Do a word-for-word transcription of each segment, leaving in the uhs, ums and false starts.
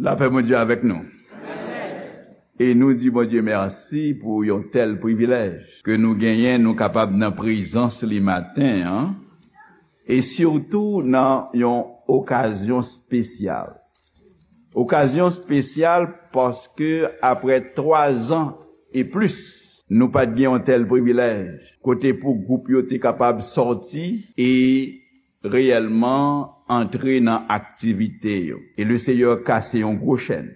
Lapè Bondye avèk nou. E nou di Bondye mèsi pou yon tèl privilèj ke nou genyen, nou kapab nan prezans li maten an, e sitou nan yon okazyon espesyal. Okazyon espesyal paske apre twa zan e plis, nou pa t gen yon tèl privilèj, kote pou gwoup yo te kapab sòti e reyèlman antre nan aktivite yo. E le Seyè kase yon gwo chèn.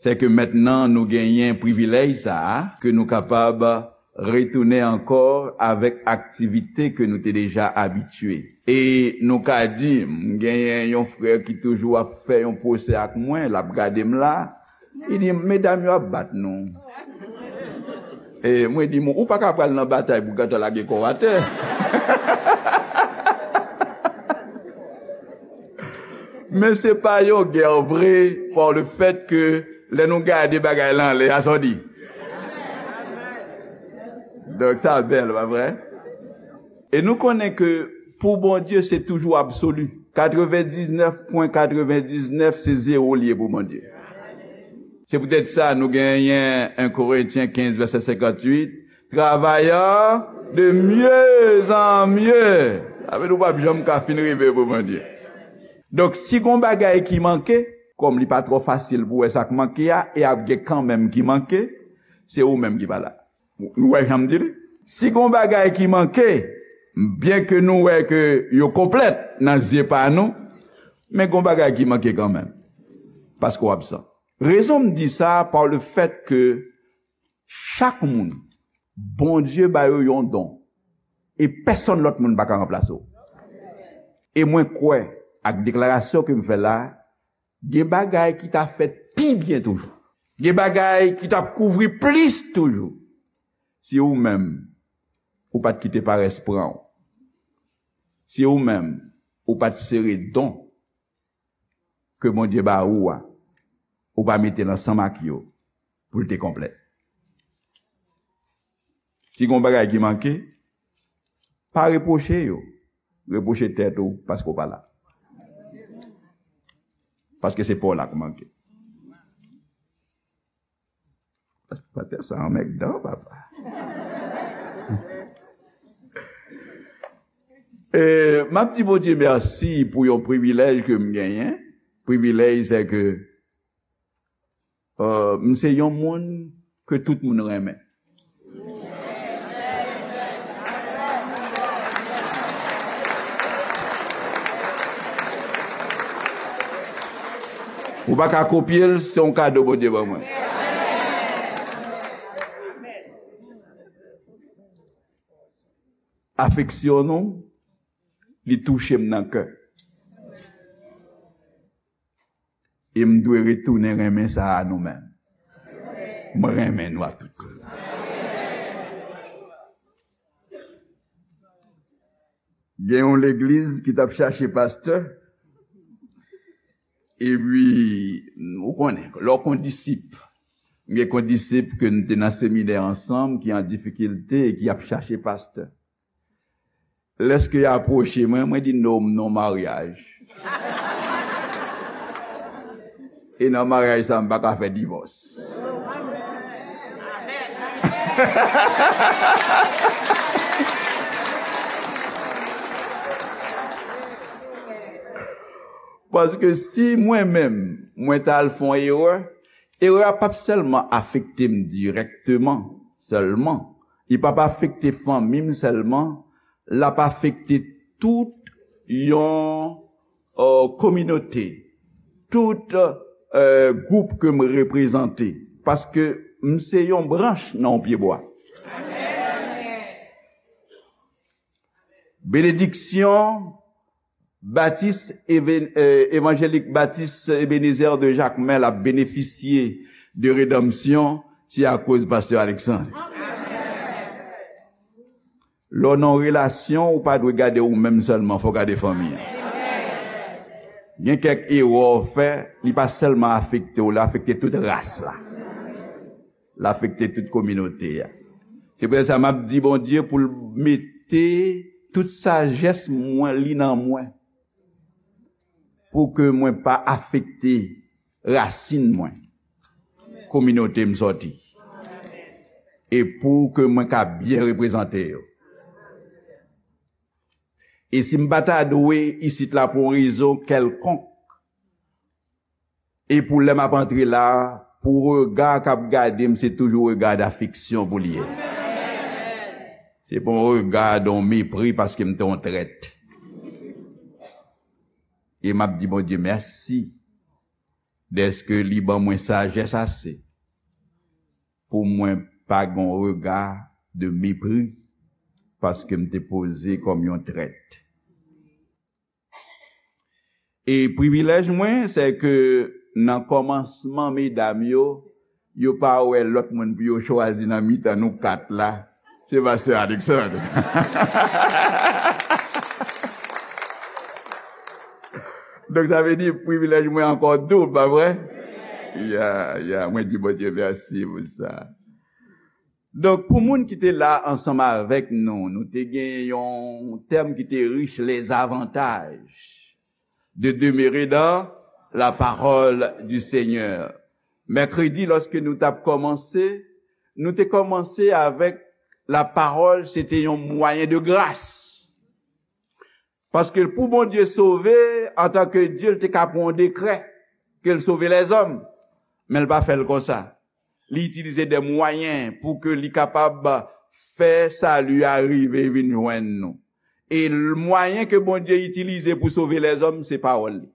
Se ke mentnan nou genyen privilèj sa a, ke nou kapab retounen ankò avèk aktivite ke nou te deja abitye. E nou ka di, m genyen yon frè ki toujou ap fè yon pwosè ak mwen, l ap gade m la, li di, "Medam yo ap bat nou." E mwen di, "Ou pa ka pral nan batay pou gentan lage kò w atè." Men se pa yon gè vre, pa le fèt ke lè nou gade bagay la anlè a, sa w di. Donk, sa bèl, pa vre? E nou konnen ke pou Bondye, se toujou absoli. Katrevendiznèf pwen katrevendiznèf, se zewo l ye pou Bondye. Se poutèt sa, nou genyen en Korentyen kenz, vèsè senkantuit, travayant de mieux en mieux. Sa vle di w p ap janm ka fin rive pou Bondye. Donk, si gon bagay ki manke, kòm li pa twò fasil pou wè sa k manke a, e ap gen kanmenm ki manke, se ou menm ki pa la. Nou wè jan m di l? Si gon bagay ki manke, byenke nou wè ke yo konplèt nan zye pa nou, men gon bagay ki manke kanmenm. Paske w absan. Rezon m di sa, pa le fèt ke chak moun, Bondye ba yo yon don. E pèsonn lòt moun pa ka ranplase w. E mwen kwè, ak deklarasyon ke m fè la, gen bagay ki ta fèt pi byen toujou. Gen bagay ki t ap kouvri plis toujou. Si ou menm, ou pa t kite parès pran w. Si ou menm, ou pa t sere don ke Bondye ba ou a, ou pa mete l ansanm ak yo pou l te konplèt. Si gon bagay ki manke, pa repwoche yo. Repwoche tèt ou paske w pa la. Paske se pa w la k manke. Paske pastè sa anmèdan, papa. E, m ap di Bondye mèsi pou yon privilèj ke m genyen. Privilèj, se ke, euh, m se yon moun ke tout moun renmen. Ou pa ka kopye l, se yon kado Bondye ban mwen. Afeksyon nou, li touche m nan kè. E m dwe retounen renmen sa a nou menm. Mwen renmen nou ak tout kè. Gen yon legliz ki t ap chache pastè. Epi, ou konnen, lè w kondisip, gen kondisip ke n te nan seminè ansanm, ki an difikilte e ki ap chache pastè. Lèske y apwoche mwen, mwen di, "No, m nan maryaj. E nan maryaj sa, m pa ka fè divòs." Paske si mwen menm, mwen t al fè yon erè, erè a p ap sèlman afekte m dirèkteman, sèlman. Li p ap afekte fanmi m sèlman, l ap afekte tout yon, euh, kominote, tout, euh, gwoup ke m reprezante. Paske m se yon branch nan yon pyebwa. Benediksyon Batis Even-, eh, Evanjelik Batis Ebenezer de Jakmèl ap benefisye de redanmsyon, se akoz Pastè Alexandre. Lè w nan yon relasyon, ou pa dwe gade ou menm sèlman, fò w gade fanmi an. Gen kèk erè w fè, li pa sèlman afekte w, li afekte tout ras la. L afekte tout kominote a. Se poutèt sa m ap di Bondye pou l mete tout sajès mwen, li nan mwen. pou ke mwen pa afekte rasin mwen, kominote m sòti, e pou ke mwen ka byen reprezante yo. E si m pa ta dwe isit la pou yon rezon kèlkonk, e pou lè m ap antre la, pou rega k ap gade m, se toujou rega dafeksyon pou li ye. Se pa yon rega de yon mepri paske m te yon trèt. E m ap di Bondye mèsi dèske li ban mwen sajès ase pou mwen pa gen yon rega de mepri paske m te poze kòm yon trèt. E privilèj mwen, se ke nan kòmansman, medam yo, yo pa wè lòt moun pou yo chwazi nan mitan nou kat la. Se pastè Alexandre. Donk, sa vle di, privilèj mwen ankò doub, pa vre? Ya, ya, mwen di Bondye mèsi pou sa. Donk, pou moun ki te la ansanm avèk nou, nou te gen yon tèm ki te rich, les avantages de demeurer dans la parole du Seigneur. Mèkredi, lòske nou t ap kòmanse, nou te kòmanse avèk la pawòl, se te yon mwayen de gras. Paske pou Bondye sove, antanke Dye, l te ka pran yon dekrè ke l sove lèzòm. Men l pa fè l konsa. Li itilize de mwayen pou ke li kapab fè sali a rive vin jwenn nou. E l-, mwayen ke Bondye itilize pou sove lèzòm, se pawòl li.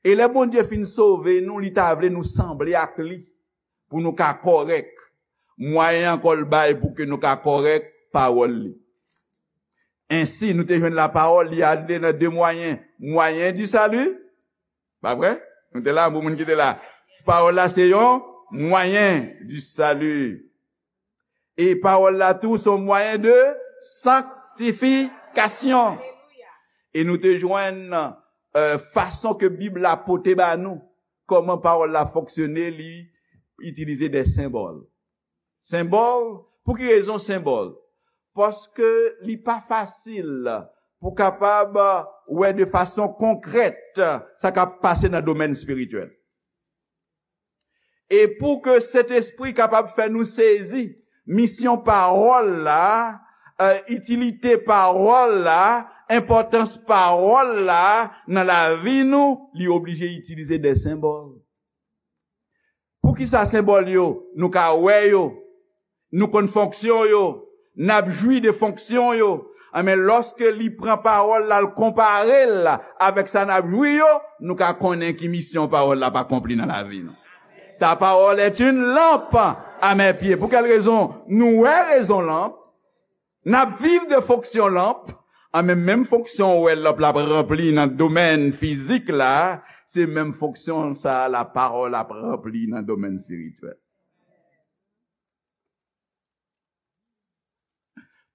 E lè Bondye fin sove nou, li ta vle nou sanble ak li, pou nou ka kòrèk. Mwayen ankò l bay pou ke nou ka kòrèk, pawòl li. Ensi, nou te jwenn lapawòl, li ale nan de mwayen. Mwayen di sali, pa vre? Nou te la, bon moun ki te la. Pawòl la se yon mwayen di sali. E pawòl la tou se yon mwayen de sanktifikasyon. E nou te jwenn, euh, fason ke Bib la pote ba nou, kòman pawòl la fonksyone, li itilize de senbòl. Senbòl, pou ki rezon senbòl? Paske li pa fasil pou kapab wè de fason konkrèt sa k ap pase nan domèn espirityèl. E pou ke Sentespri kapab fè nou sezi misyon pawòl la, eh, itilite pawòl la, enpòtans pawòl la nan lavi nou, li oblije itilize de senbòl. Poukisa senbòl yo? Nou ka wè yo, nou konn fonksyon yo, n ap jwi de fonksyon yo. Anben, lòske li pran pawòl la, l konpare l avèk sa n ap jwi yo, nou ka konnen ki misyon pawòl la ap akonpli nan lavi nou. Ta parole est une lampe à mes pieds. Pou kèl rezon? Nou wè rezon lanp, n ap viv de fonksyon lanp, anben, menm fonksyon ou wè lanp la ap ranpli nan domèn fizik la, se menm fonksyon sa a lapawòl ap ranpli nan domèn espirityèl.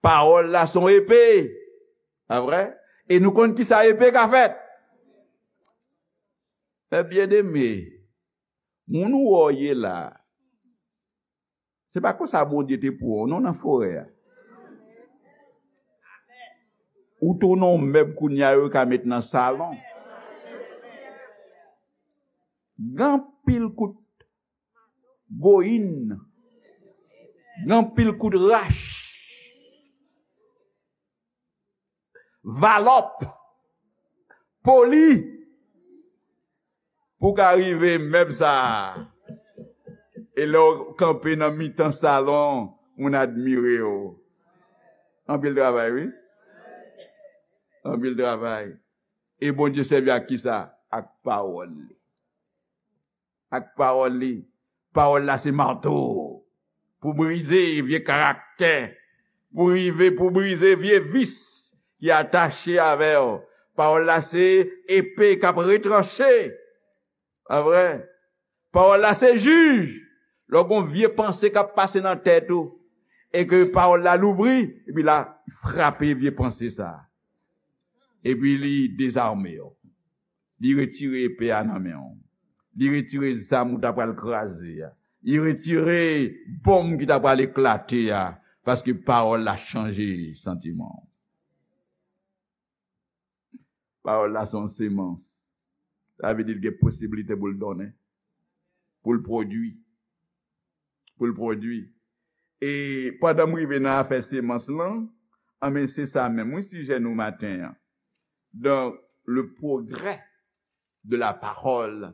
Pawòl la se yon epe. Pa vre? E nou konn kisa epe ka fè. Mè byeneme, moun ou wè w ye la, se pa konsa Bondye te pran w, non, nan forè a. Ou tounen yon mèb kounye a yo ka met nan salon. Gen anpil kout goyin, gen anpil kout rach, valòp, poli, pou w ka rive mèb sa a. E lè w kanpe nan mitan salon, moun admire w. Anpil travay, wi. Anpil travay. E Bondye sèvi ak kisa? Ak pawòl li. Ak pawòl li. Pawòl la se mato pou brize vye karaktè, pou rive pou brize vye vis ki atache avè w. Pawòl la se epe k ap retranche. Pa vre? Pawòl la se jij. Lè w gen yon vye panse k ap pase nan tèt ou, e ke pawòl la louvri, epi la frape vye panse sa a. Epi li dezame w. Li retire epe a nan men w. Li retire zam ou ta pral kraze a. Li retire bonm ki ta pral eklate a. Paske pawòl la chanje santiman w. Pawòl la se yon semans. Sa vle di l gen posiblite pou l donnen, pou l pwodui, pou l pwodui. E pandan m rive nan afè semans lan, anben, se sa menm, wi, sijè nou maten an. Donc, le progrès de la parole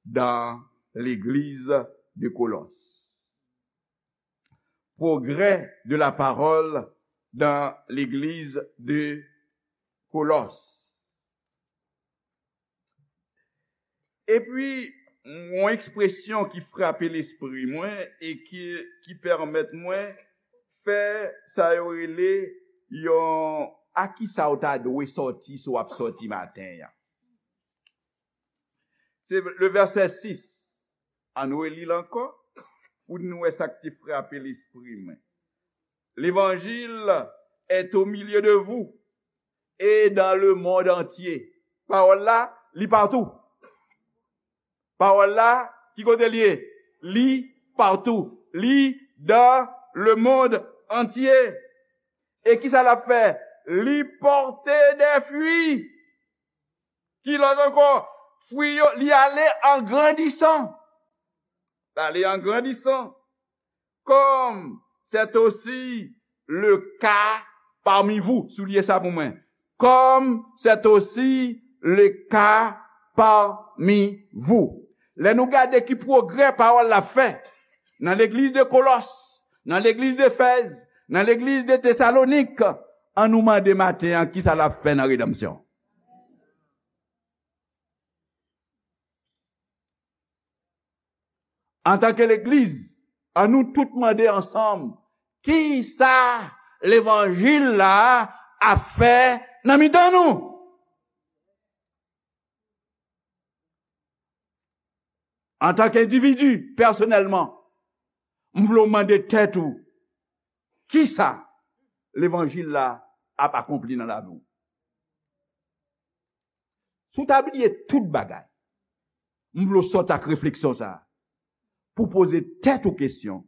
dans l'église de Colosses. Progrès de la parole dans l'église de Colosses. Epi, yon ekspresyon ki frape lespri mwen e ki, ki pèmèt mwen fè sa yo rele yon, a ki sa w ta dwe sòti si w ap sòti maten an. Se le vèsè sis. Ann reli l ankò pou n wè sa k te frape lespri mwen. L'évangile est au milieu de vous et dans le monde entier. Pawòl la, li patou. Pawòl la, ki kote li ye? Li patou. Li dans le monde entier. E ki sa l ap fè? Li pòte de fwi. Ki lòt ankò? Fwi yo, li ale an grandisan. Li ale an grandisan. Comme c'est aussi le cas parmi vous. Souliye sa pou mwen. Comme c'est aussi le cas parmi vous. Lè nou gade ki pwogrè pawòl la fè nan legliz de Kolòs, nan legliz d'Efèz, nan legliz de Tesalonik, ann nou mande maten an ki sa l ap fè nan redanmsyon. Antanke legliz, ann nou tout mande ansanm, ki sa levanjil la ap fè nan mitan nou? Antanke endividi, pèsonèlman, m vle w mande tèt ou, ki sa levanjil la ap akonpli nan lavi w? Si w ta bliye tout bagay, m vle w sòti ak refleksyon sa a, pou w poze tèt ou kesyon,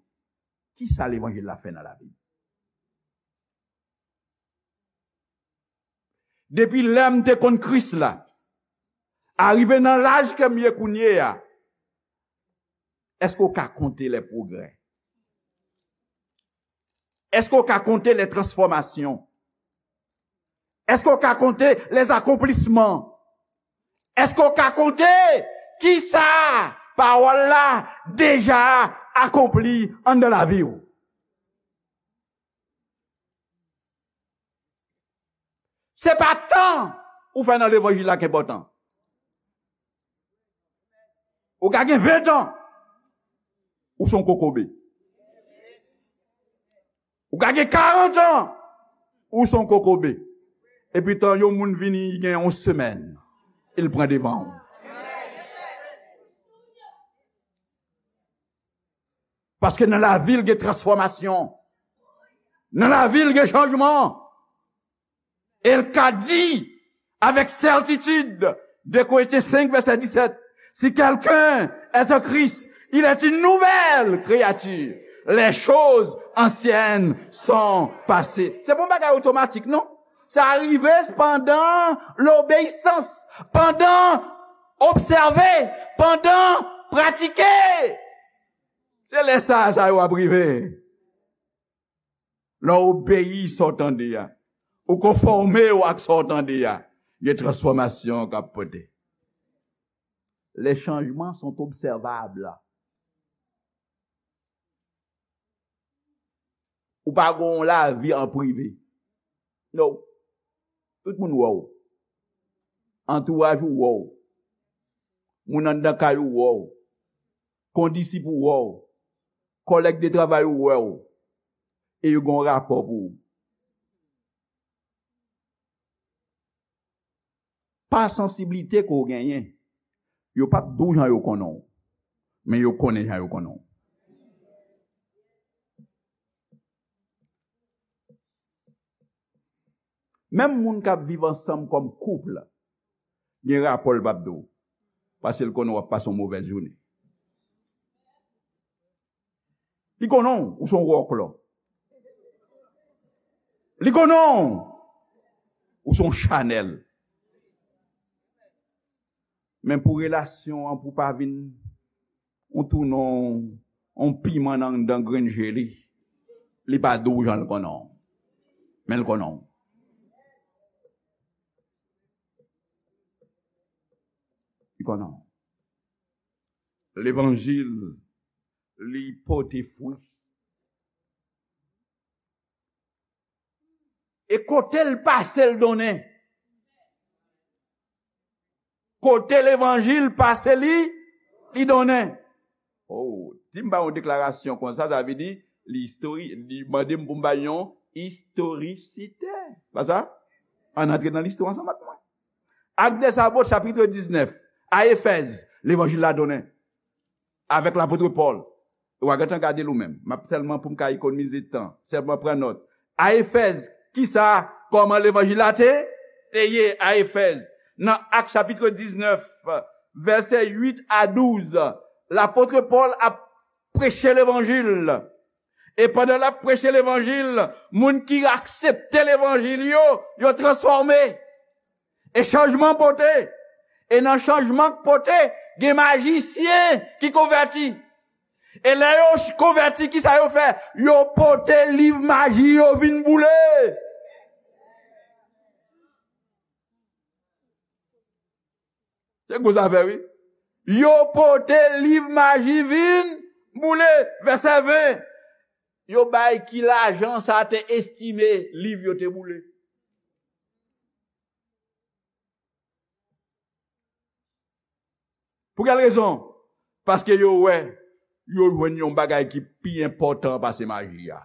ki sa levanjil la fè nan lavi m? Depi lè m te konn Kris la, arive nan laj ke m ye kounye a, èske w ka konte les progrès? Èske w ka konte les transformations? Èske w ka konte les accomplissements? Èske w ka konte ki sa pawòl la deja akonpli anndan lavi w? Se pa tan ou fè nan levanjil la ki enpòtan. Ou ka gen ven tan, ou se yon kokobe. Ou ka gen karant an, ou se yon kokobe. Epi tan yon moun vini, li gen yon semèn, e l pran devan w. Paske nan lavi l gen transfòmasyon. Nan lavi l gen chanjman. E l ka di avec certitude, deux Corinthiens cinq, verset dix-sept, si quelqu'un est en Christ, il est une nouvelle créature. Les choses anciennes sont passées. Se pa yon bagay otomatik, non. Sa rive pandan lobeyisans, pandan obsève, pandan pratike. Se lè sa a, sa yo ap rive. Lè w obeyi sa w tande a, ou konfòme w ak sa w tande a, gen transfòmasyon k ap pote. Les changements sont observables. Ou pa gen yon lavi an prive. No. Tout moun wè w. Antouraj ou wè w. Moun anndan kay ou wè w. Kondisip ou wè w. Kòlèg de travay ou wè w. E yo gen yon rapò pou ou. Pa sansiblite ke w genyen, yo p ap di w jan yo konnen w, men yo konnen jan yo konnen w. Menm moun k ap viv ansanm kòm koup, gen rapò l p ap di w, paske l konnen w ap pase yon movèz jounen. Li konnen w, ou se yon wòklò. Li konnen w, ou se yon chanèl. Men pou relasyon an, pou pa vin, ou tounen yon piman nan anndan grenn je li. Li pa dou jan l konnen w. Men l konnen w. Li konnen w. Levanjil, li pote fwi. E kote l pase, l donnen. Kote levanjil pase, li, li donnen. Oh, si m ba yon deklarasyon konsa, sa vle di li istori-, li mande m pou m ba yon istorisite. Pa sa? Ann antre nan listwa ansanm ak mwen. Actes des Apôtres, chapit diznèf, a Efèz, levanjil la donnen. Avèk lapot Pòl. Ou a gentan gade l ou menm. M ap sèlman pou m ka ekonomize tan. Sèlman pran nòt. A Efèz, kisa, kòman levanjil la te, te ye a Efèz? Nan Ak chapit diznèf, vèsè uit a douz, lapot Pòl ap preche levanjil. E pandan l ap preche levanjil, moun ki aksepte levanjil yo, yo transfòme. E chanjman pote. E nan chanjman k pote, gen majisyen ki konvèti. E lè yo ch-, konvèti, kisa yo fè? Yo pote liv maji yo vin boule. Se gwo zafè, wi. Yo pote liv maji vin boule. Vèsè ven. Yo bay ki lajan sa te estime liv yo te boule. Pou kèl rezon? Paske yo wè, yo jwenn yon bagay ki pi enpòtan pase maji a.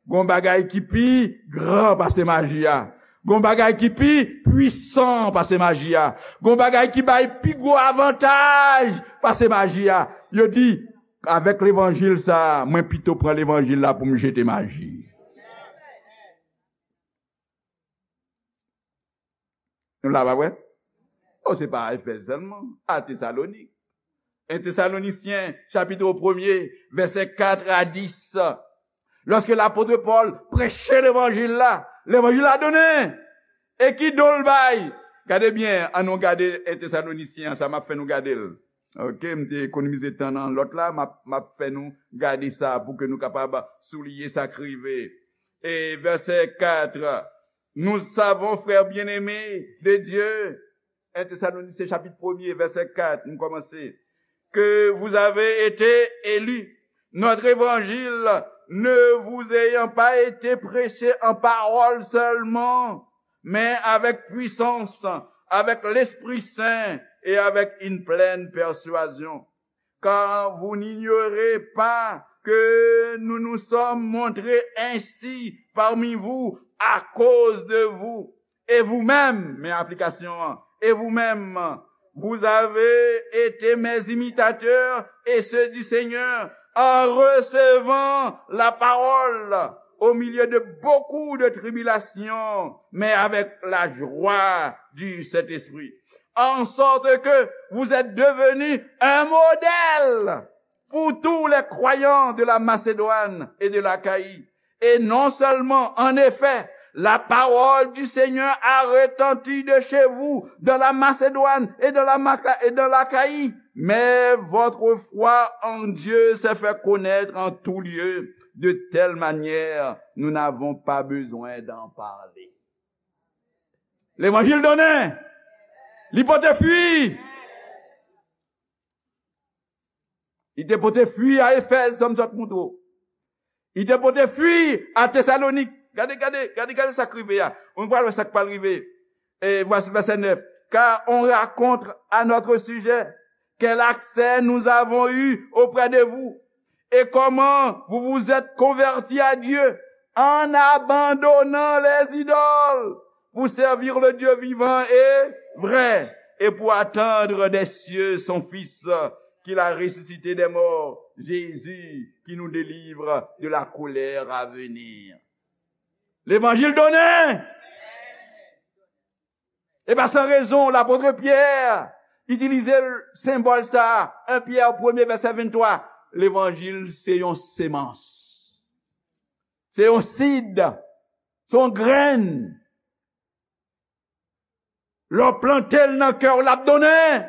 Gon bagay ki pi gran pase maji a. Gon bagay ki pi pwisan pase maji a. Gon bagay ki bay pi gwo avantaj pase maji a. Yo di, avèk levanjil sa, mwen pito pran levanjil la pou m jete maji. Nou la, pa vre? Oh, se pa Efèz sèlman, a Tesalonik. En Tesalonisyen, chapit premye, vèsè kat a dis. Lòske lapot Pòl preche levanjil la, levanjil la donnen. E ki don l bay? Gade byen, ann nou gade en Tesalonisyen an, sa m ap fè nou gade l. Ok, m te ekonomize tan nan lòt la, m ap, m ap fè nou gade sa pou ke nou kapab souliye sa k rive. E vèsè kat, nous savons, frères bien-aimés de Dieu, en Tesalonicien chapit premye, vèsè kat, nou kòmanse, que vous avez été élus. Notre évangile ne vous ayant pas été prêché en parole seulement, mais avec puissance, avec l'Esprit Saint et avec une pleine persuasion. Car vous n'ignorez pas que nous nous sommes montrés ainsi parmi vous à cause de vous. Et vous-même, men aplikasyon an, et vous-même, vous avez été mes imitateurs et ceux du Seigneur en recevant la parole au milieu de beaucoup de tribulations, mais avec la joie du Saint-Esprit. En sorte que vous êtes devenus un modèle pour tous les croyants de la Macédoine et de l'Achaïe. Et non seulement, en effet, la parole du Seigneur a retenti de chez vous, dans la Macédoine et dans la Maca-, et dans l'Achaïe, mais votre foi en Dieu s'est fait connaître en tout lieu, de telle manière, nous n'avons pas besoin d'en parler. Levanjil donnen. Li pote fwi. Li te pote fwi a Efèz, sa m sot montre w. Li te pote fwi a Tesalonik. Gade, gade, gade, gade sa k rive a. Nou pral wè sa k pral rive. E vwasi vèsè nèf. Car on raconte à notre sujet quel accès nous avons eu auprès de vous, et comment vous vous êtes convertis à Dieu en abandonnant les idoles pour servir le Dieu vivant et vrai, et pour attendre des cieux son Fils, qu'il a ressuscité des morts, Jésus, qui nous délivre de la colère à venir. Levanjil donnen! E pa san rezon, lapot Pyè itilize senbòl sa a, en Pyè premye vèsè venntwa. Levanjil se yon semans. Se yon sid. Se yon grenn. Lè w plante l nan kè w, l ap donnen.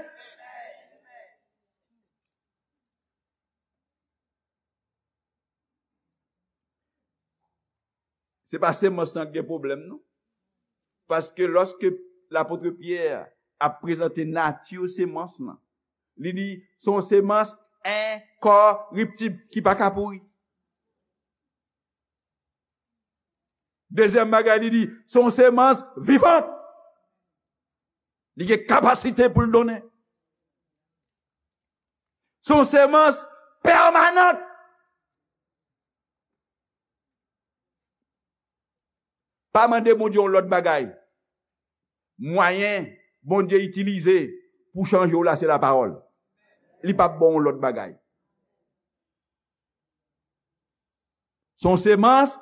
Se pa semans lan ki gen pwoblèm, non. Paske lòske lapot Pyè ap prezante nati semans lan, li di, se yon semans enkòriptib ki pa ka pouri. Dezyèm bagay, li di, se yon semans vivan. Li gen kapasite pou l donnen. Se yon semans pèmanan. Pa mande Bondye yon lòt bagay. Mwayen Bondye itilize pou chanje w la, se lapawòl. Li p ap ba w yon lòt bagay. Se yon semans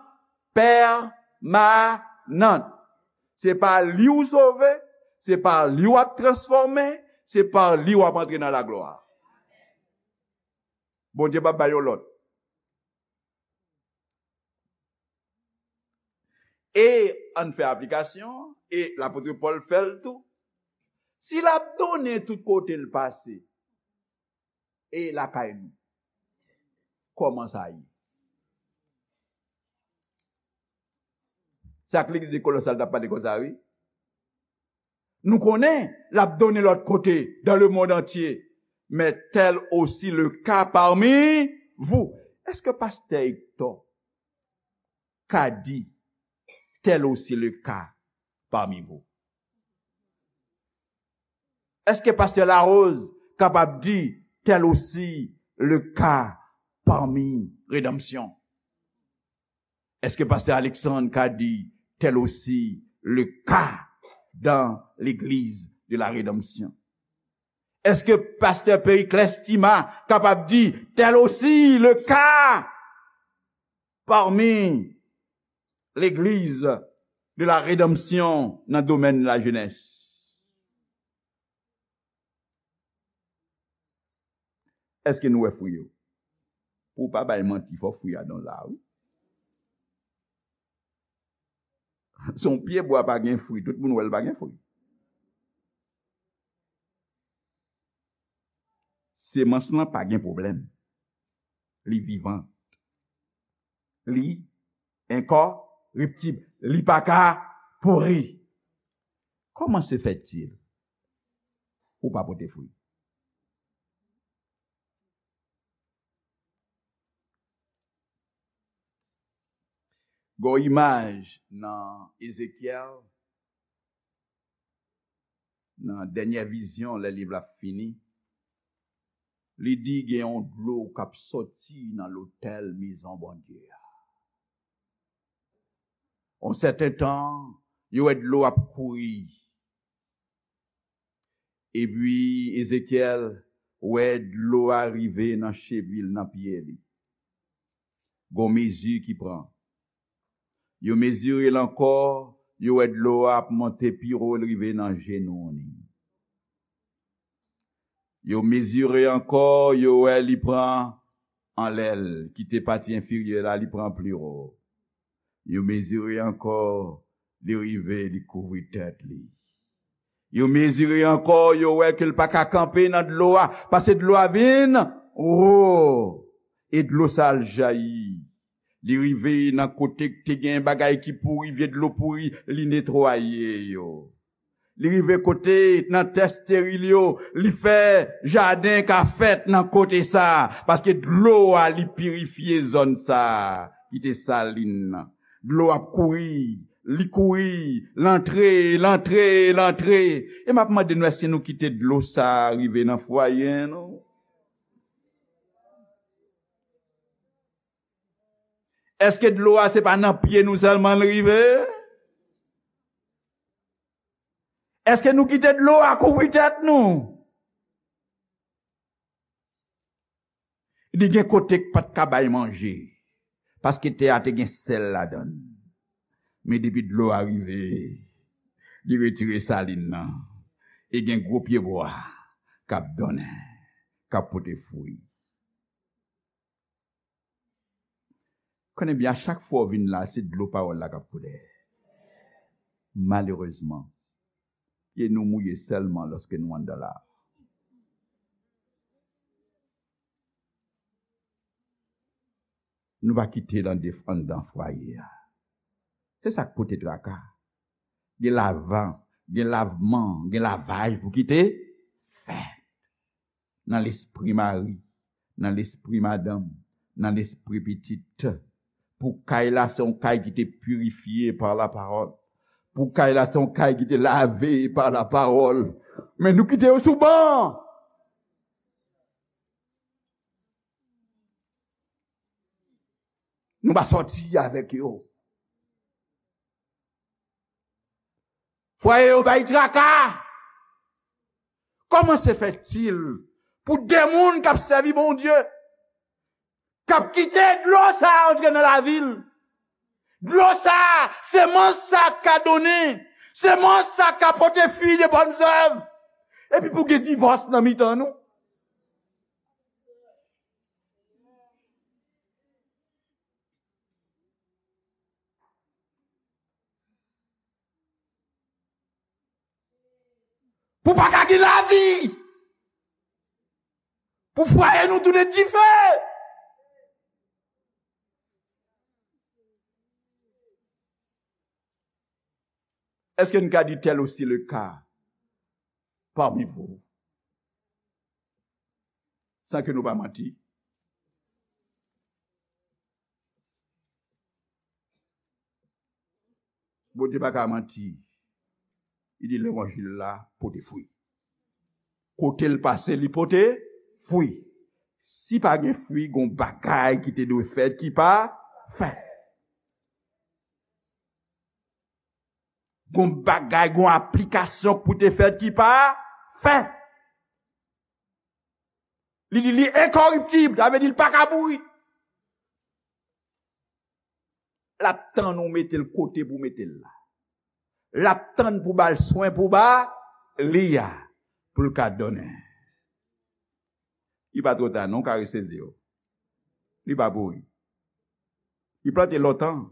pèmanan. Se pa li w sove, se pa li w ap transfòme, se pa li w ap antre nan laglwa. Bondye p ap bay yon lòt. E ann fè aplikasyon, e lapot Pòl fè l tou. Si l ap donnen tout kote l pase, e lakay nou, kòman sa ye? Se ak legliz de Kolosal t ap pale konsa, wi. Nou konnen l ap donnen lòt kote, dans le monde entier. Mais tel aussi le cas parmi vous. Èske pastè Hector ka di, tel aussi le cas parmi vous? Èske pastè Larose kapab di, tel aussi le cas parmi Rédemption? Èske pastè Alexandre ka di, tel aussi le cas dans l'église de la rédemption? Èske pastè Periclès Tima kapab di, tel aussi le cas parmi l'église de la rédemption nan domèn lajenès? Èske nou wè fwi yo? Pou w pa bay manti, fò fwi a donn la, wi. Se yon pye bwa pa gen fwi, tout moun wè l pa gen fwi. Semans lan pa gen pwoblèm. Li vivan. Li enkòriptib. Li pa ka pouri. Comment se fait-il ou pa pote fwi? Gon imaj nan Ezekyèl, nan dènyè vizyon, lè liv la fini, li di gen yon dlo k ap sòti nan lotèl mezon Bondye a. Yon sèten tan, yo wè dlo ap kouri. Epi Ezekyèl wè dlo a rive nan chevi l, nan pye li. Gon mezi ki pran. Yo mezire l ankò, yo wè dlo a ap monte pi wo, l rive nan jenou li. Yo mezire ankò, yo wè li pran anlè l, kite pati enfirye la, li pran pli wo. Yo mezire ankò, li rive, li kouvri tèt li. Yo mezire ankò, yo wè ke l pa ka kanpe nan dlo a, paske dlo a vin wo. E dlo sa al jayi. Li rive nan kote k te gen bagay ki pouri, vye dlo pouri, li netwaye yo. Li rive kote nan tè esteril yo, li fè jaden ka fèt nan kote sa, paske dlo a li pirifye zòn sa ki te salin nan. Dlo ap kouri, li kouri, l antre, l antre, l antre. E m ap mande nou, èske nou kite dlo sa rive nan fwaye nou? Èske dlo a se pa nan pye nou sèlman l rive? Èske nou kite dlo a kouvri tèt nou? Li gen kote k pa t ka bay manje, paske tè a te gen sèl ladan l. Men depi dlo a rive, li retire salin nan, e gen gwo pyebwa k ap donnen, k ap pote fwi. Konnen byen, a chak fwa w vin la, se dlo pawòl la k ap koule. Malerezman, pye nou mouye sèlman lòske nou anndan la. Nou pa kite l annde-, anndan fwaye a. Se sa k pote traka. Gen lavan, gen lavman, gen lavaj pou kite fèt nan lespri mari, nan lespri madanm, nan lespri pitit. Pou kay la, se yon kay ki te pirifye pa lapawòl. Pou kay la, se yon kay ki te lave pa lapawòl. Men nou kite yo sou ban. Nou pa sòti avèk yo. Fwaye yo bay traka. Kòman se fètil pou de moun k ap sèvi Bondye, k ap kite dlo sa a antre nan lavi l? Dlo sa a, semans sa a ka donnen, semans sa a ka pote fwi de bòn zèv. Epi pou gen divòs nan mitan nou. Pou pa ka gen lavi. Pou fwaye nou tounen dife. Èske n ka di tel aussi le cas parmi vous? San ke nou pa manti. Bondye pa ka manti. Li di levanjil la pote fwi. Kote l pase, li pote fwi. Si pa gen fwi, gon bagay ki te dwe fèt ki pa fèt. Gon bagay, gon aplikasyon pou te fèt ki pa fèt. Li di li enkoriptib, sa vle di l pa ka mouri. L ap tann ou mete l kote pou mete l la. L ap tann pou ba l swen pou ba li a, pou l ka donnen. Li pa twò ta non, w ka resezi yo. Li pa pouri. Li plante lontan.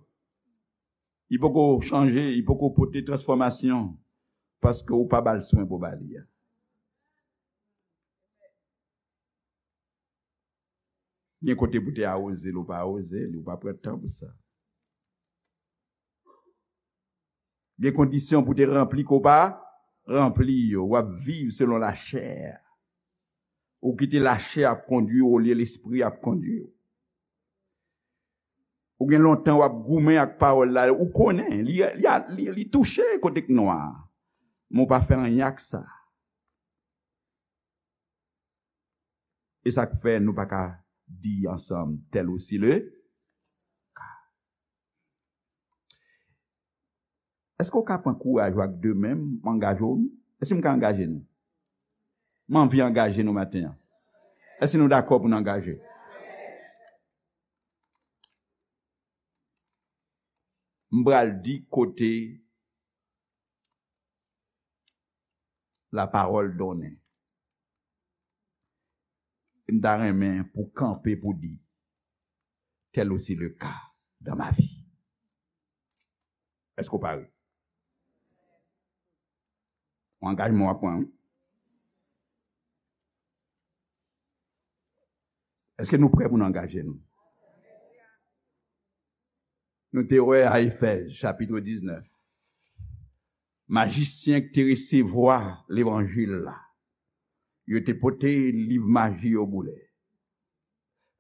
Li poko chanje, li poko pote transfòmasyon, paske ou pa ba l swen pou ba li a. Gen kote pou te awoze l, ou pa awoze li, ou pa pran tan pou sa. Gen kondisyon pou te ranpli ke w pa ranpli yo. W ap viv selon lachè. Ou kite lachè ap kondui w olye lespri ap kondui w. Ou gen lontan w ap goumen ak pawòl la, ou konnen, li, li, li, li touche kote k nwa. Men w pa fè anyen ak sa. E sa k fè nou pa ka di ansanm, tel aussi le cas. Èske w ka pran kouraj ou ak de men m, m angaje w? Èske m ka angaje nou? M anvi angaje nou maten an. Èske nou dakò pou n angaje? M pral di kote lapawòl donnen. M ta renmen pou kanpe pou di, tel aussi le cas dans ma vie. Èske w pare? Yon angajman w ap pran, wi. Èske nou prè pou n angaje nou? Nou te wè a Efèz, chapit diznèf, majisyen ki te resevwa levanjil la, yo te pote liv maji yo boule,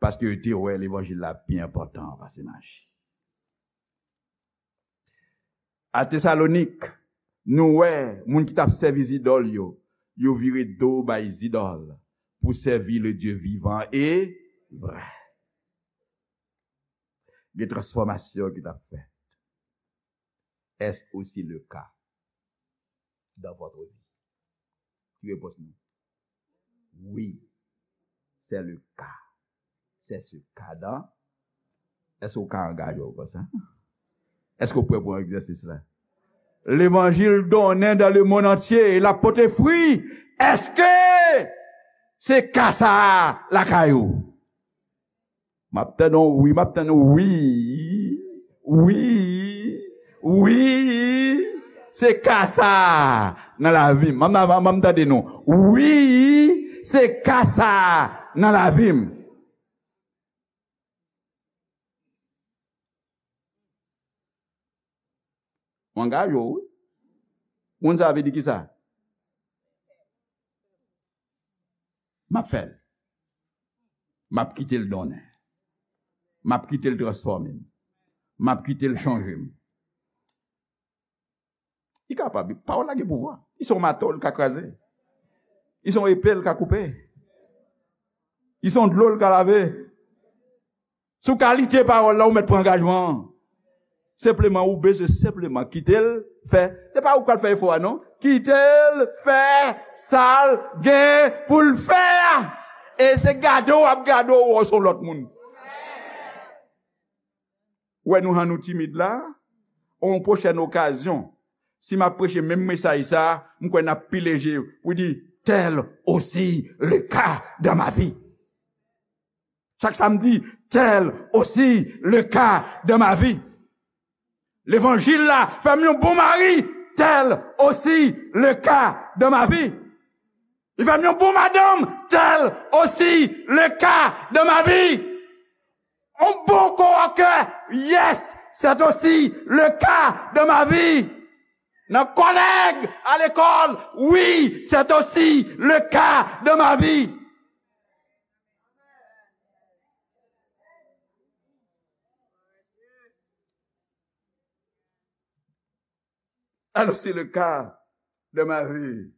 paske yo te wè levanjil la pi enpòtan pase maji. A Tesalonik, nou wè moun ki t ap sèvi zidòl yo, yo vire do bay zidòl pou sèvi le Dieu vivant et vrai. Gen transfòmasyon ki t ap fèt. Est-ce aussi le cas dans votre vie? Ki repons nou? Oui, c'est le cas. C'est ce cas dans. Èske w ka angaje w konsa? Èske w prè pou egzèsis la? Levanjil donnen dans le monde entier, l ap pote fwi. Èske se ka sa a lakay ou? M ap tann yon wi, m ap tann yon wi. Wi. Wi. Se ka sa a nan lavi m. M, m, m, m tande nou. Wi, se ka sa a nan lavi m. Ou angaje w, wi. Moun sa vle di ki sa? M ap fè l. M ap kite l donnen. M ap kite l transfòme m. M ap kite l chanje m. Li kapab, wi. Pawòl la gen pouvwa. Li se yon mato, l ka kraze. Li se yon epe, l ka koupe. Li se yon dlo, l ka lave. Sou kalite pawòl la, ou mèt pran angajman an. Senpleman, ou bezwen senpleman kite l fè. Se pa ou k pral fè efò a, non. Kite l fè sa l gen pou l fè a. E se gade w ap gade w, w se yon lòt moun. Ou wè nou jan nou timid la, yon pwochèn okazyon, si m ap preche menm mesaj sa, m kwè n ap pile je pou di, tel aussi le cas dans ma vie. Chak samdi, tel aussi le cas dans ma vie. Levanjil la fè m yon bon mari, tel aussi le cas dans ma vie. Li fè m yon bon madanm, tel aussi le cas dans ma vie. Un bon coworker, yes, c'est aussi le cas dans ma vie. Nan kòlèg, à l'école, oui, c'est aussi le cas dans ma vie. Alors, c'est le cas de ma vie.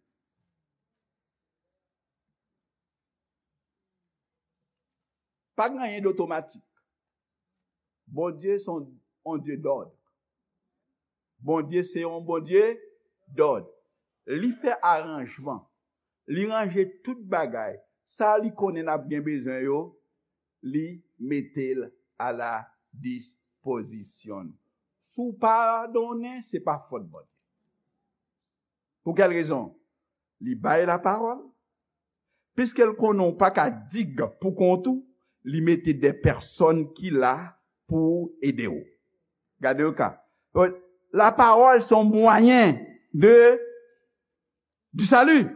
Pa gen anyen d'otomatik. Bondye se yon, yon Dye dòd. Bondye se yon Bondye dòd. Li fè aranjman. Li ranje tout bagay. Sa li konnen n ap gen bezwen yo, li mete l a la dispozisyon n. Si w pa donnen, se pa fòt Bondye. Pou kèl rezon? Li bay lapawòl. Piske l konnen w pa ka dig pou kont ou, li mete de pèsòn ki la pou ede w. Gade yon ka. Lapawòl se yon mwayen de, du salut.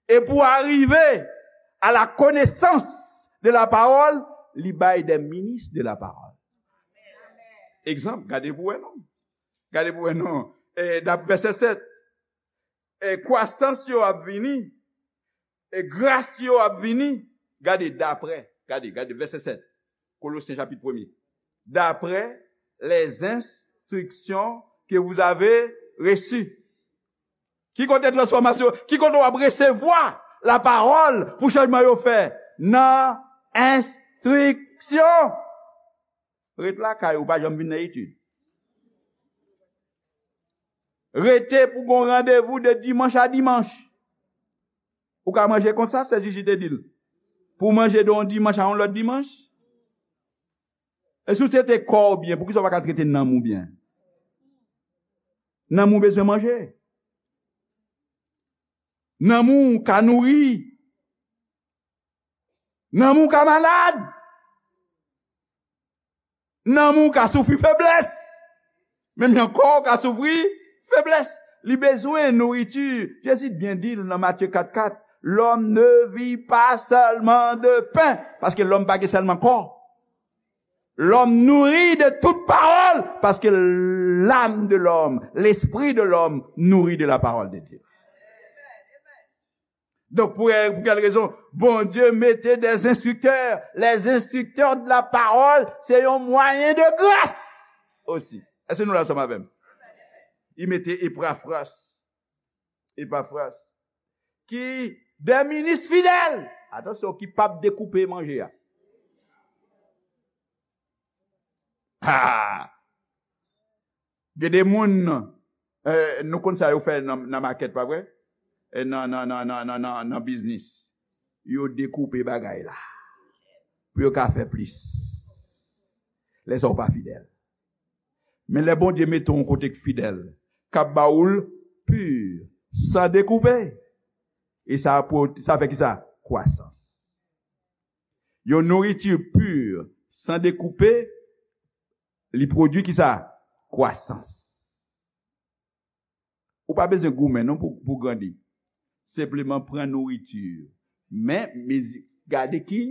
E pou arive à la connaissance de la parole, li bay de minis de la parole. Egzanp, gade pou wè non. Gade pou wè non. E, dap vèsè sèt. E, kwasans yo ap vini. E, gras yo ap vini. Gade, daprè. Gade, gade, vèsè sèt. Kolosyen chapit premye. D'après les instructions que vous avez reçues. Ki kote transfòmasyon? Ki kote w ap resevwa lapawòl pou chanjman yo fè? Nan enstriksyon. Ret lakay ou, pa janm vin nan etid. Rete pou gon randevou de dimanch a dimanch. Ou ka manje konsa, sè Jiji te di l. Pou w manje de yon dimanch a yon lòt dimanch. E si w trete kò w byen, poukisa w pa ka trete nanm ou byen? Nanm ou bezwen manje. Nanm ou ka nouri. Nanm ou ka malad. Nanm ou ka soufri feblès. Menm jan kò w ka soufri feblès. Li bezwen nouriti. Jezi t byen di l nan Matye kat kat, l'homme ne vit pas seulement de pain. Paske lòm pa gen sèlman kò. L'homme nourrit de toute parole, parce que l'âme de l'homme, l'esprit de l'homme nourrit de la parole de Dieu. Donk, pou, pou kèl rezon? Bondye mete des instructeurs. Les instructeurs de la parole, se yon mwayen de gras osi. Èske nou la ansanm avè m? Li mete Epafras. Epafras. Ki de minis fidèl. Atansyon, ki p ap dekoupe manje a. Ha! Gen de moun, eh, nou konn sa yo fè nan, nan makèt, pa vre? Eh, nan, nan, nan, nan, nan, nan, nan biznis. Yo dekoupe bagay la. Pou yo ka fè plis. Lè sa w pa fidèl. Men lè Bondye mete w yon kote k fidèl, k ap ba ou l pi, san dekoupe. E sa, sa fè ki sa? Kwasans. Yon nouriti pi, san dekoupe, li pwodui ki sa? Kwasans. Ou pa bezwen goumen non pou, pou grandi. Senpleman pran nouriti. Men, mezi, gade ki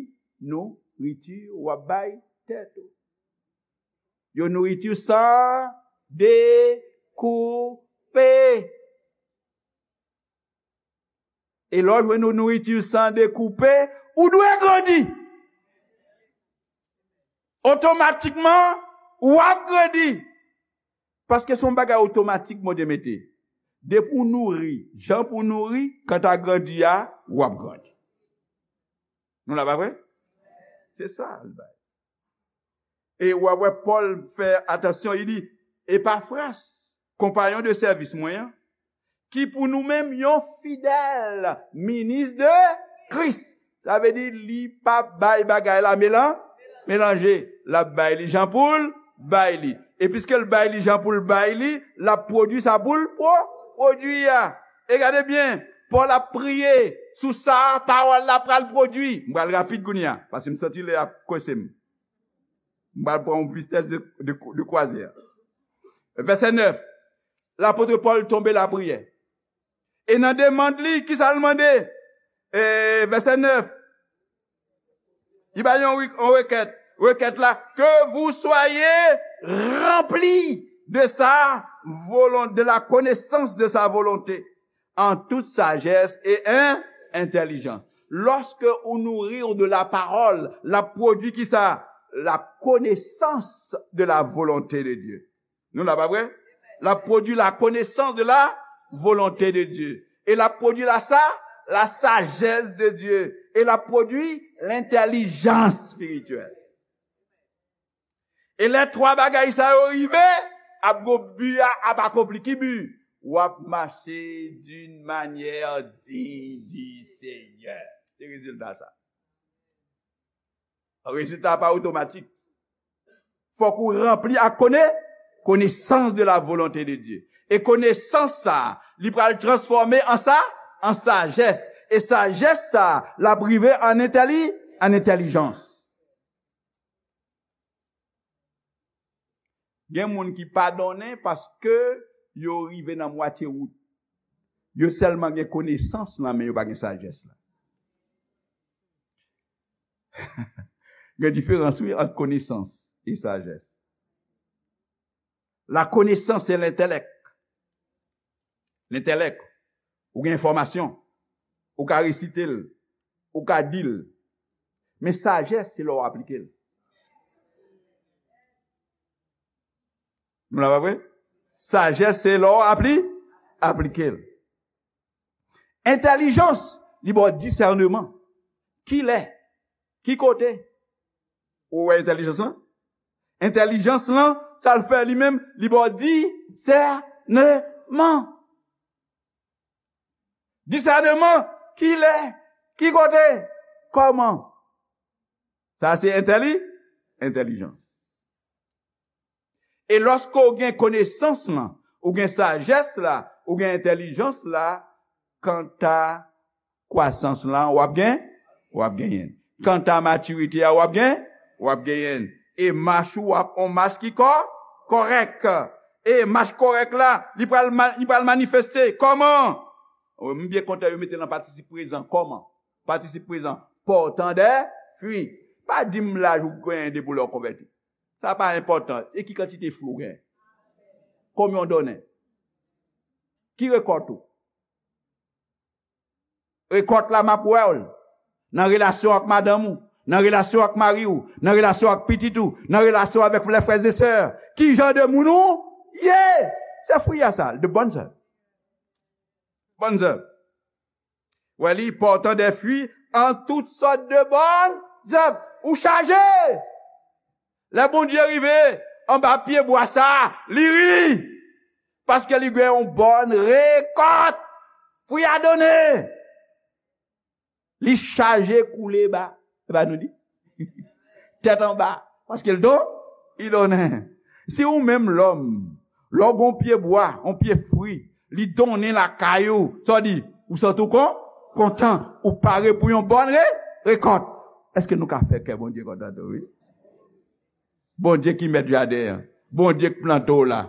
nouriti w ap bay tèt ou. Yon nouriti san dekoupe. koupe. E lè w jwenn yon nouriti san dekoupe, ou dwe grandi. Otomatikman, w ap grandi. Paske se yon bagay otomatik Bondye mete. Depi w nouri, jan pou w nouri, kanta grandi a, w ap grandi. Nou la, pa vre? Se sa l bay. E w ap wè Pòl fè atansyon, li di, Epafras, konpayon de sèvis mwen an, ki pou nou menm yon fidèl minis de Kris. Sa vle di, li p ap bay bagay la melan-, melanje. L ap bay li jan pou l bay li. E piske l bay li jan pou l bay li, l ap pwodui sa pou l pwo-, pwodui a. E gade byen, Pòl ap priye sou sa pawòl la pral pwodui. M pral rapid kounye a, paske m santi lè a ap kwense m. M pral pran yon vitès de, de, de kwazè. Vèsè nèf, lapot Pòl tonbe lapriyè. E nan demann li, kisa l mande? E, vèsè nèf, li ba yon, yon rekèt. Rekèt la, que vous soyez remplis de sa volonté, de la connaissance de sa volonté, en toute sagesse et in-, intelligence. Lorsque on nourrit de la parole, l ap pwodui kisa? La connaissance de la volonté de Dieu. Nou la, pa vre? L ap pwodui la connaissance de la volonté de Dieu. E l ap pwodui la sa, la sagesse de Dieu. E l ap pwodui l'intelligence spirituelle. E lè twa bagay sa yo rive, ap gon bi a ap akonpli. Ki bi? W ap mache d'une manière digne du Seigneur. Se rezilta sa. Rezilta pa otomatik. Fòk ou ranpli ak kone-, connaissance de la volonté de Dieu. E konesans sa, li pral transfòme an sa, an sajès. E sajès sa, l ap rive an entèli-, an entèlijans. Gen moun ki pa donnen paske yo rive nan mwatye wout. Yo sèlman gen konesans lan, men yo pa gen sajès la. Gen diferans, wi, ant konesans e sajès. La connaissance, c'est l'intellect. L'intellect. Ou gen enfòmasyon. Ou ka resite l. Ou ka di l. Men sajès, se lè w aplike l. Nou la, pa vre? Sajès, se lè w apli-, aplike l. Entèlijans, li ba w disèneman. Kilè? Ki kote? Ou wè entèlijans lan? Entèlijans lan, sa l fè li menm, li ba w disèneman. Disèneman, kilè? Ki kote? Kòman? Sa se entèli-, entèlijans. E lòske w gen konesans lan, ou gen sajès la, ou gen entèlijans la, kanta kwasans lan, w ap gen, w ap genyen l. Kanta matirite a, w ap gen, w ap genyen l. E mach ou ap on mach ki kò-, kòrèk. E mach kòrèk la, li pral ma-, li pral manifeste. Kòman? M byen kontan yo mete l an patisip prezan. Kòman? Patisip prezan. Pòtan dè fwi. Pa di m laj ou genyen depi lè w konvèti. Sa pa enpòtan. E ki kantite fwi w genyen? Konbyen w donnen? Ki rekòt ou? Rekòt la m ap wè w nan relasyon ak madanm ou, nan relasyon ak mari w, nan relasyon ak pitit ou, nan relasyon avèk lè frè e sè. Ki jan de moun ou ye? Se fwi a sa, de bonnes œuvres. Bonnes œuvres. Wè li, portant des fruits en toutes sortes de bonnes œuvres. Ou chaje! Lè Bondye rive anba pye bwa sa, li ri. Paske li gen yon bòn rekòt. Fwi a donnen. Li chaje koule ba. E pa nou di? Tèt anba. Paske l don, li donnen. Si ou menm lòm, lè w gon pye bwa, yon pye fwi, li donnen lakay ou, sa w di? Ou santi w kon-, kontan, ou pare pou yon bòn re-, rekòt. Èske nou ka fè kè Bondye kontan tou, wi? Bondye ki mèt jaden an. Bondye k plante w la.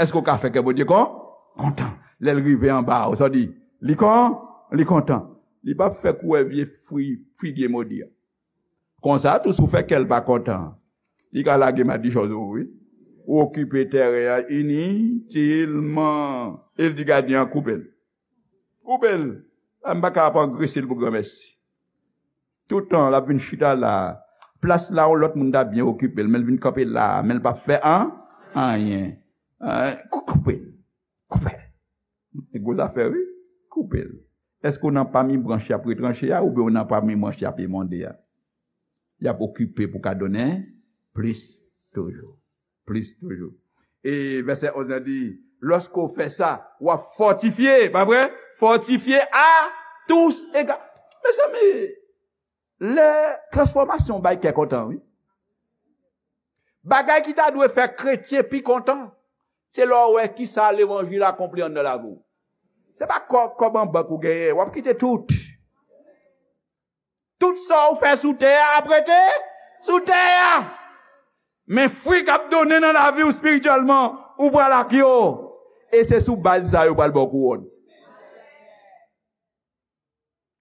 Èske w ka fè kè Bondye kon-, kontan? Lè l rive anba w, sa w di? Li kon-, li kontan. Li p ap fè kourè vye fwi, figye modi a. Konsa tou, si w fè kè l pa kontan, li ka lage madichon sou ou, wi. Ou okipe tèren an initilman. E l di gadyen an, "Koupe l. Koupe l. M pa ka ap angrese l pou granmèsi." Toutan, l ap vin chita la. Plas la, yon lòt moun ta byen okipe l, men l vin kanpe la, men l p ap fè an, anyen. An, kou-, koupe l. Koupe l. E gwo zafè, wi. Koupe l. Èske w nan pami branch y ap retranche a, oubyen w nan pami branch y ap emonde a? Y ap okipe pou ka donnen plis toujou. Plis toujou. E vèsè onz lan di, lòske w fè sa, w ap fòtifye, pa vre? Fòtifye à tous égards. Mezanmi, lè transfòmasyon bay kè kontan, wi. Bagay ki ta dwe fè kretyen pi kontan, se lè w wè kisa levanjil akonpli anndan lavi w. Se pa kò-, kòb an bank ou genyen, w ap kite tout. Tout sa w fè sou tè a ap rete sou tè a. Men fwi k ap donnen nan lavi w espirityèlman, ou pral ak yo. E se sou baz sa yo pral ba w kouwòn.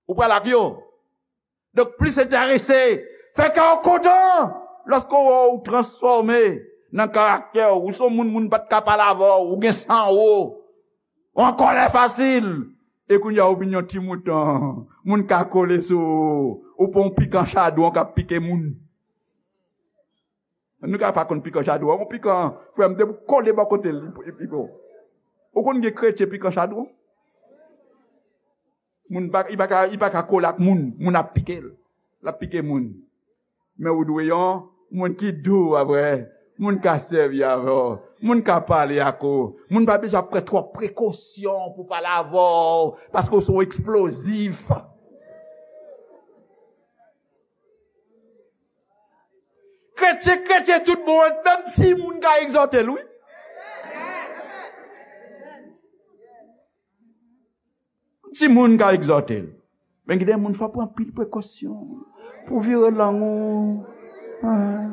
Ou pral ak yo. Donk, plis enterese, fè kè w kontan lòske w wè w transfòme nan karaktè w. Ou se yon moun, moun pa t ka pale avè w, ou gen san wo, ou an kòlè fasil. E kounye a, ou vin yon ti mouton, moun ka kole sou ou, ou pa yon pikan chadwon k ap pike moun. Nou ka pa konn pikan chadwon, yon pikan, frè m, depi w kole bò kote l, li, li, li bon. Ou konn gen kretyen pikan chadwon? Moun pa, li pa ka, li pa ka kole ak moun, moun ap pike l. L ap pike moun. Men ou dwe yon moun ki dou avè, moun ka sèvi avè w, moun ka pale ak ou, moun pa bezwen ap pran twòp prekosyon pou pale avè w, paske w se yon eksplozif. Kretyen, kretyen tout bon, menm timoun ka egzòte l, wi. Timoun ka egzòte l. Men gen de moun fò pran anpil prekosyon pou vire lang ou. Ah.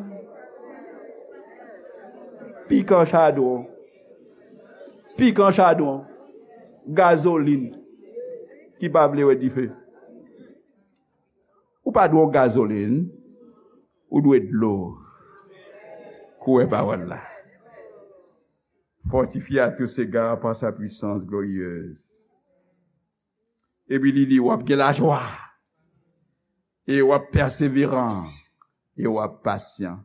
Pikan chadwon. Pikan chadwon. Gazolin ki pa vle wè dife. Ou pa dwe yon gazolin, ou dwe dlo. Kouwè pawòl la. Fortifié à tous égards par sa puissance glorieuse. Epi li di, w ap gen lajwa, e w ap pèseveran, e w ap pasyan.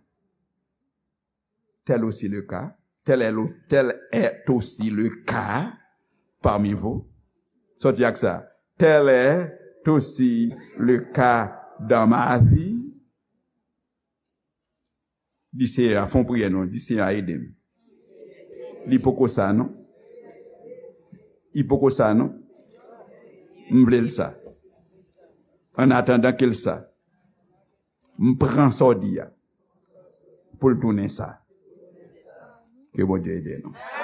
Tel aussi le cas, tel est le, tel est aussi le cas parmi vous. Sòti ak sa. Tel est aussi le cas dans ma vie. Di Senyè a, fè yon priyè non, di Senyè a ede m. Li poko sa non. Li poko sa non. M vle l sa. An atandan ke l sa. M pran sa w di a pou l tounen sa. Ke Bondye ede nou.